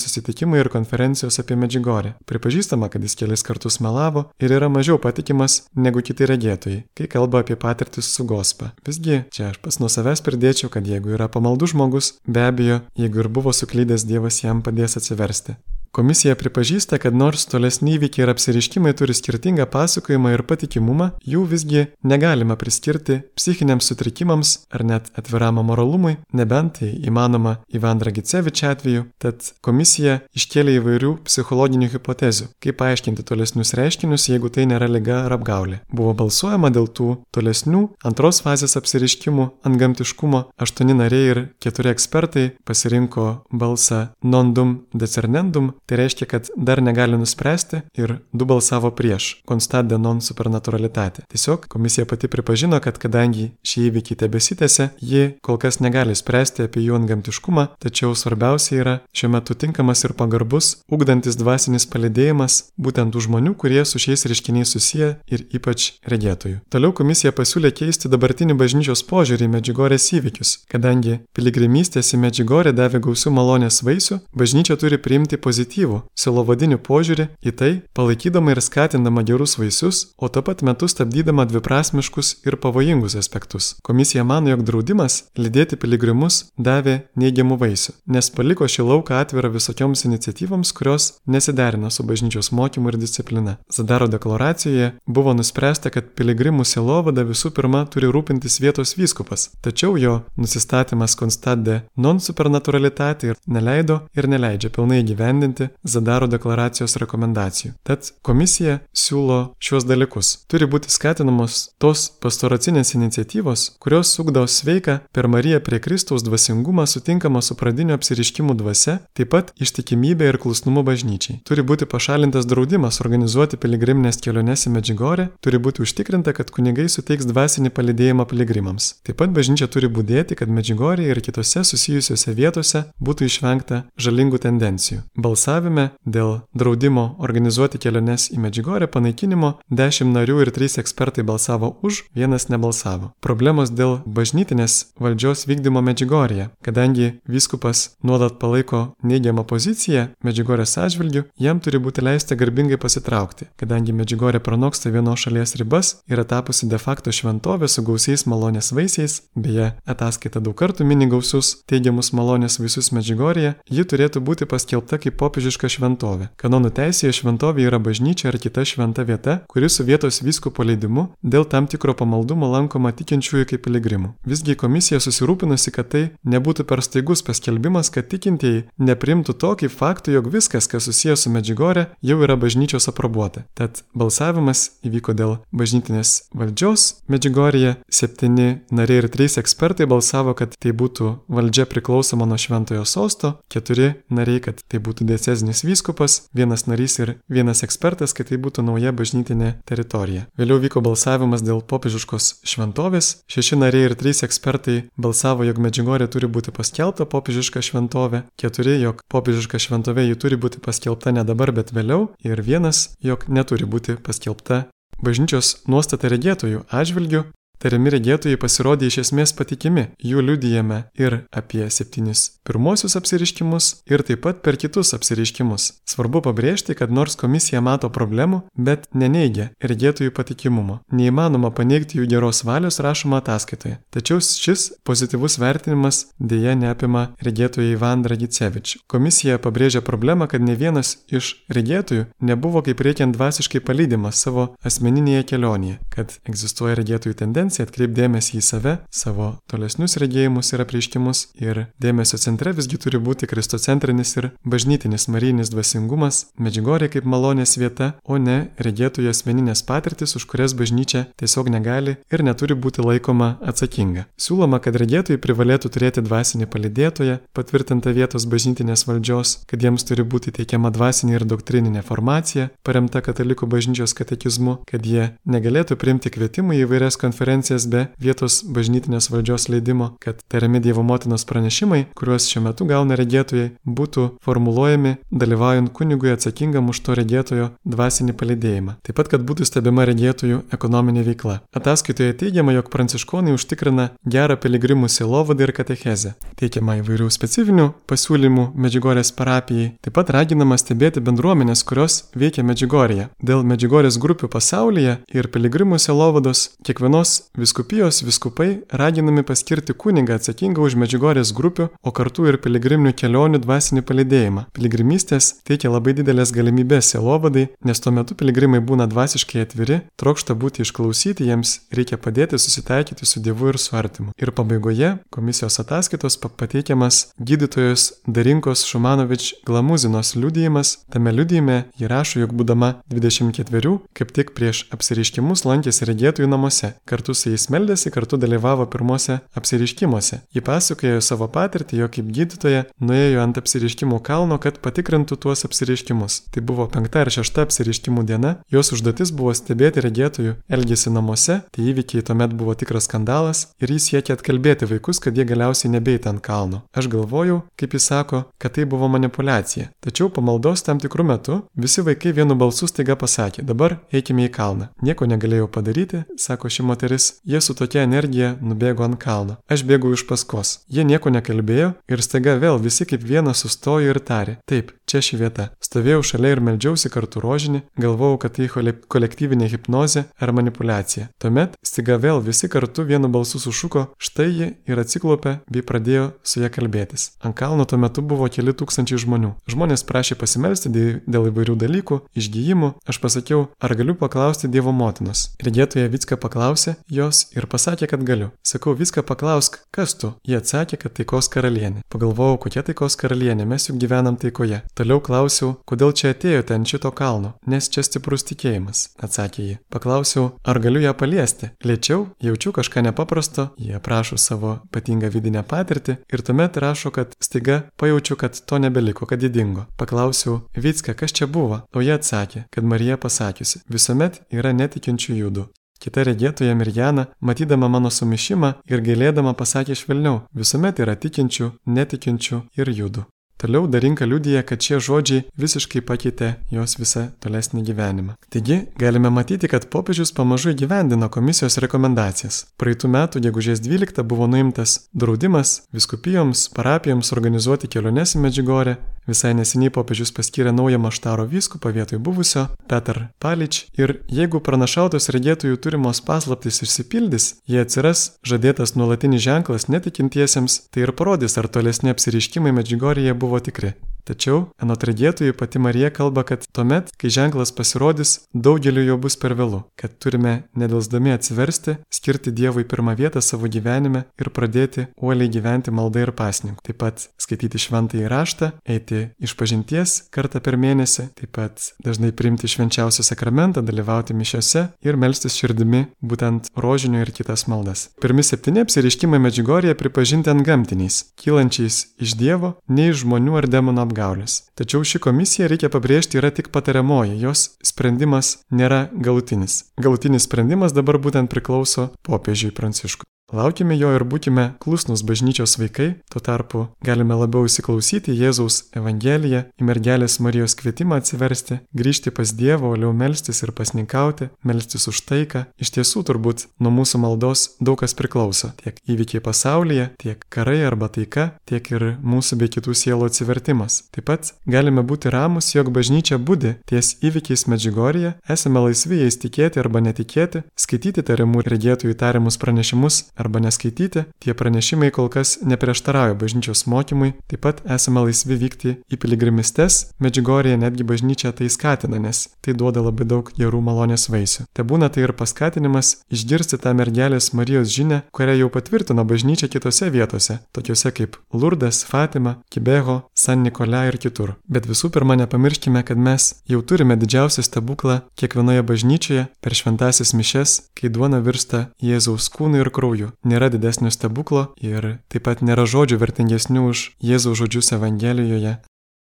[SPEAKER 1] susitikimai ir konferencijos apie Medžiugorję. Pripažįstama, kad jis kelis kartus melavo ir yra mažiau patikimas negu kiti regėtojai, kai kalba apie patirtis su Gospa. Visgi, čia aš pats nuo savęs pridėčiau, kad jeigu yra pamaldus žmogus, be abejo, jeigu ir buvo suklydęs, Dievas jam padės atsiversti. Komisija pripažįsta, kad nors tolesni įvykiai ir apsireiškimai turi skirtingą pasakojimą ir patikimumą, jų visgi negalima priskirti psichiniams sutrikimams ar net atviram amoralumui, nebent tai įmanoma Ivan Dragicevič atveju, tad komisija iškėlė įvairių psichologinių hipotezių, kaip paaiškinti tolesnius reiškinius, jeigu tai nėra liga ar apgaulė. Buvo balsuojama dėl tų tolesnių antros fazės apsireiškimų antgamtiškumo. 8 nariai ir 4 ekspertai pasirinko balsą non dum decernendum. Tai reiškia, kad dar negali nuspręsti ir 2 balsavo prieš constat de non supernaturalitate. Tiesiog komisija pati pripažino, kad kadangi šie įvykiai tebesitęsia, ji kol kas negali spręsti apie jų antgamtiškumą, tačiau svarbiausia yra šiuo metu tinkamas ir pagarbus, ugdantis dvasinis palydėjimas būtent tų žmonių, kurie su šiais reiškiniais susiję ir ypač regėtojų. Toliau komisija pasiūlė keisti dabartinį bažnyčios požiūrį į Medžiugorės įvykius. Kadangi piligrimystės į Medžiugorę davė gausių malonės vaisių, bažnyčia turi priimti pozityvų sielovadinį požiūrį į tai, palaikydama ir skatindama gerus vaisius, o tuo pat metu stabdydama dviprasmiškus ir pavojingus aspektus. Komisija mano, jog draudimas lydėti piligrimus davė neigiamų vaisių, nes paliko šį lauką atvirą visokioms iniciatyvoms, kurios nesiderina su bažnyčios mokymu ir disciplina. Zadaro deklaracijoje buvo nuspręsta, kad piligrimų sielovada visų pirma turi rūpintis vietos vyskupas, tačiau jo nusistatymas constat de non supernaturalitate neleido ir neleidžia pilnai įgyvendinti Zadaro deklaracijos rekomendacijų. Tad komisija siūlo šiuos dalykus. Turi būti skatinamos tos pastoracinės iniciatyvos, kurios ugdo sveiką per Mariją prie Kristaus dvasingumą sutinkamą su pradiniu apsireiškimų dvasia, taip pat ištikimybė ir klusnumu bažnyčiai. Turi būti pašalintas draudimas organizuoti piligriminės keliones į Medžiugorę, turi būti užtikrinta, kad kunigai suteiks dvasinį palydėjimą piligrimams. Taip pat bažnyčia turi budėti, kad Medžiugorėje ir kitose susijusiose vietose būtų išvengta žalingų tendencijų. Balsavime dėl draudimo organizuoti keliones į Medžiugorę panaikinimo 10 narių ir 3 ekspertai balsavo už, 1 nebalsavo. Problemos dėl bažnytinės valdžios vykdymo Medžiugorėje. Kadangi vyskupas nuolat palaiko neigiamą poziciją Medžiugorės atžvilgiu, jam turi būti leista garbingai pasitraukti. Kadangi Medžiugorė pranoksta vienos šalies ribas, yra tapusi de facto šventovė su gausiais malonės vaisiais, beje, ataskaita daug kartų mini gausius teigiamus malonės vaisius Medžiugorėje, ji turėtų būti paskelbta kaip popiežiška šventovė. Kanonų teisėje šventovė yra bažnyčia ar kita šventa vieta, kuri su vietos vyskupo leidimu dėl tam tikro pamaldumo lankoma tikinčiųjų kaip piligrimų. Visgi komisija susirūpinusi, kad tai nebūtų per staigus paskelbimas, kad tikintieji neprimtų to kaip faktų, jog viskas, kas susijęs su Medžiugorė, jau yra bažnyčios aprobuota. Tad balsavimas įvyko dėl bažnytinės valdžios Medžiugorėje. 7 nariai ir 3 ekspertai balsavo, kad tai būtų valdžia priklausoma nuo šventojo sosto, 4 nariai, kad tai būtų diecezinis vyskupas, 1 narys ir 1 ekspertas, kad tai būtų nauja bažnytinė teritorija. Vėliau vyko balsavimas dėl popiežiškos šventovės. 6 nariai ir 3 ekspertai balsavo, jog Medžiugorė turi būti paskelbta popiežiška šventovė, 4, jog popiežiška šventovė ji turi būti paskelbta ne dabar, bet vėliau, ir 1, jog neturi būti paskelbta. Bažnyčios nuostata regėtojų atžvilgiu. Tariami regėtojai pasirodė iš esmės patikimi. Jų liudijame ir apie 7 pirmosius apsireiškimus ir taip pat per kitus apsireiškimus. Svarbu pabrėžti, kad nors komisija mato problemų, bet neneigia regėtojų patikimumo. Neįmanoma paneigti jų geros valios rašoma ataskaitoje. Tačiau šis pozityvus vertinimas dėja neapima regėtojų Ivan Dragicevič. Komisija pabrėžia problemą, kad ne vienas iš regėtojų nebuvo kaip reikiant dvasiškai palydimas savo asmeninėje kelionėje, kad egzistuoja regėtojų tendencija atkreipdėmėsi į save, savo tolesnius regėjimus ir apreiškimus, ir dėmesio centre visgi turi būti kristocentrinis ir bažnytinis marijinis dvasingumas, Medžiugorė kaip malonės vieta, o ne regėtojų asmeninės patirtis, už kurias bažnyčia tiesiog negali ir neturi būti laikoma atsakinga. Siūloma, kad regėtojai privalėtų turėti dvasinį palydėtoją, patvirtintą vietos bažnytinės valdžios, kad jiems turi būti teikiama dvasinė ir doktrininė formacija, paremta katalikų bažnyčios katekizmu, kad jie negalėtų priimti kvietimų į įvairias konferencijas be vietos bažnytinės valdžios leidimo, kad tariami Dievo motinos pranešimai, kuriuos šiuo metu gauna regėtojai, būtų formuluojami dalyvaujant kunigui atsakingam už to regėtojo dvasinį palydėjimą. Taip pat, kad būtų stebima regėtojų ekonominė veikla. Ataskaitoje teigiama, jog pranciškonai užtikrina gerą piligrimų sielovadą ir katechezę. Teikiama įvairių specifinių pasiūlymų Medžiugorės parapijai. Taip pat raginama stebėti bendruomenės, kurios veikia Medžiugorėje. Dėl Medžiugorės grupių pasaulyje ir piligrimų sielovados kiekvienos Vyskupijos vyskupai raginami paskirti kunigą atsakingą už Medžiugorės grupių, o kartu ir piligriminių kelionių dvasinį palydėjimą. Piligrimystės teikia labai didelės galimybės sielovadai, nes tuo metu piligrimai būna dvasiškai atviri, trokšta būti išklausyti, jiems reikia padėti susitaikyti su Dievu ir su artimu. Ir pabaigoje komisijos ataskaitos pateikiamas gydytojos Darinkos Šumanovič Glamuzinos liudijimas. Tame liudijime ji rašo, jog būdama 24, kaip tik prieš apsireiškimus lankėsi regėtojų namuose. Kartu su jais meldėsi, kartu dalyvavo pirmose apsireiškimuose. Ji pasakojo savo patirtį, jog kaip gydytoja nuėjo ant apsireiškimų kalno, kad patikrintų tuos apsireiškimus. Tai buvo 5 ar 6 apsireiškimų diena. Jos užduotis buvo stebėti regėtojų elgesį namuose. Tai įvykiai tuomet buvo tikras skandalas ir jis siekė atkalbėti vaikus, kad jie galiausiai nebeit ant kalno. Aš galvojau, kaip jis sako, kad tai buvo manipuliacija. Tačiau po maldos tam tikrų metų visi vaikai vienu balsu staiga pasakė: dabar eikime į kalną. Nieko negalėjau padaryti, sako ši moteris, jie su tokia energija nubėgo ant kalno. Aš bėgau iš paskos. Jie nieko nekalbėjo ir staiga vėl visi kaip vienas sustojo ir tarė: taip, čia ši vieta. Stovėjau šalia ir meldžiausi kartu rožinį, galvojau, kad tai kolektyvinė hipnozė ar manipuliacija. Tuomet staiga vėl visi kartu vienu balsu sušuko: štai ji, ir atsiklaupė bei pradėjo su ja kalbėtis. Ant kalno tuo metu buvo keli tūkstančiai žmonių. Žmonės prašė pasimelsti dėl įvairių dalykų, išgijimų. Aš pasakiau: ar galiu paklausti Dievo motinos? Regėtoja Vicka paklausė jos ir pasakė, kad galiu. Sakau: Vicka, paklausk, kas tu? Jie atsakė, kad taikos karalienė. Pagalvojau, kokia taikos karalienė, mes juk gyvenam taikoje. Toliau klausiau: kodėl čia atėjote ant šito kalno? Nes čia stiprus tikėjimas, atsakė ji. Paklausiau: ar galiu ją paliesti? Lėčiau, jaučiu kažką nepaprasto. Jie aprašo savo ypatingą vidinę patirtį ir tuomet rašo, kad staiga pajaučiu, kad to nebeliko, kad ji dingo. Paklausiau: Vicka, kas čia buvo? O jie atsakė, kad Marija pasakiusi: visuomet yra netikinčių judų. Kita regėtoja Mirjana, matydama mano sumišimą ir gailėdama, pasakė švelniau: visuomet yra tikinčių, netikinčių ir judų. Toliau Darinka liudija, kad šie žodžiai visiškai pakeitė jos visą tolesnį gyvenimą. Taigi, galime matyti, kad popiežius pamažu įgyvendino komisijos rekomendacijas. Praeitų metų gegužės 12 buvo nuimtas draudimas vyskupijoms, parapijoms organizuoti keliones į Medžiugorę. Visai neseniai popiežius paskyrė naują Maštaro vyskupą vietoj buvusio, Petr Palič. Ir jeigu pranašautos regėtojų turimos paslaptys išsipildys, jie atsiras žadėtas nuolatinis ženklas netikintiesiems, tai ir parodys, ar tolesni apsireiškimai Medžiugorėje buvo tikri. Tačiau, anot regėtojų, pati Marija kalba, kad tuomet, kai ženklas pasirodys, daugeliu jo bus per vėlu, kad turime nedelsdami atsiversti, skirti Dievui pirmą vietą savo gyvenime ir pradėti uoliai gyventi maldą ir pasninku. Taip pat skaityti šventąjį raštą, eiti išpažinties kartą per mėnesį, taip pat dažnai priimti švenčiausią sakramentą, dalyvauti mišiose ir melstis širdimi būtent rožinio ir kitas maldas. Pirmi 7 apsireiškimai Medžiugorėje pripažinti antgamtiniais, kylančiais iš Dievo, ne iš žmonių ar demonų apgaulės. Tačiau ši komisija, reikia pabrėžti, yra tik patariamoji, jos sprendimas nėra galutinis. Galutinis sprendimas dabar būtent priklauso popiežiui Pranciškui. Laukime jo ir būkime klusnūs bažnyčios vaikai, tuo tarpu galime labiau įsiklausyti Jėzaus Evangeliją, į mergelės Marijos kvietimą atsiversti, grįžti pas Dievą, uoliau melstis ir pasninkauti, melstis už taiką. Iš tiesų turbūt nuo mūsų maldos daug kas priklauso, tiek įvykiai pasaulyje, tiek karai arba taika, tiek ir mūsų bei kitų sielų atsivertimas. Taip pat galime būti ramus, jog bažnyčia budi ties įvykiais Medžiugorėje, esame laisvi jais tikėti arba netikėti, skaityti tariamų regėtojų tariamus pranešimus arba neskaityti, tie pranešimai kol kas neprieštarauja bažnyčios mokymui, taip pat esame laisvi vykti į piligrimistes, Medžiugorėje netgi bažnyčia tai skatina, nes tai duoda labai daug gerų malonės vaisių. Te būna tai ir paskatinimas išgirsti tą mergelės Marijos žinią, kurią jau patvirtino bažnyčia kitose vietose, tokiuose kaip Lurdas, Fatima, Kibeho, San Nikolai ir kitur. Bet visų pirma nepamirškime, kad mes jau turime didžiausią stebuklą kiekvienoje bažnyčioje per šventąsias mišias, kai duona virsta Jėzaus kūnu ir krauju. Nėra didesnio stebuklo ir taip pat nėra žodžių vertingesnių už Jėzaus žodžius Evangelijoje.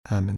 [SPEAKER 1] Amen.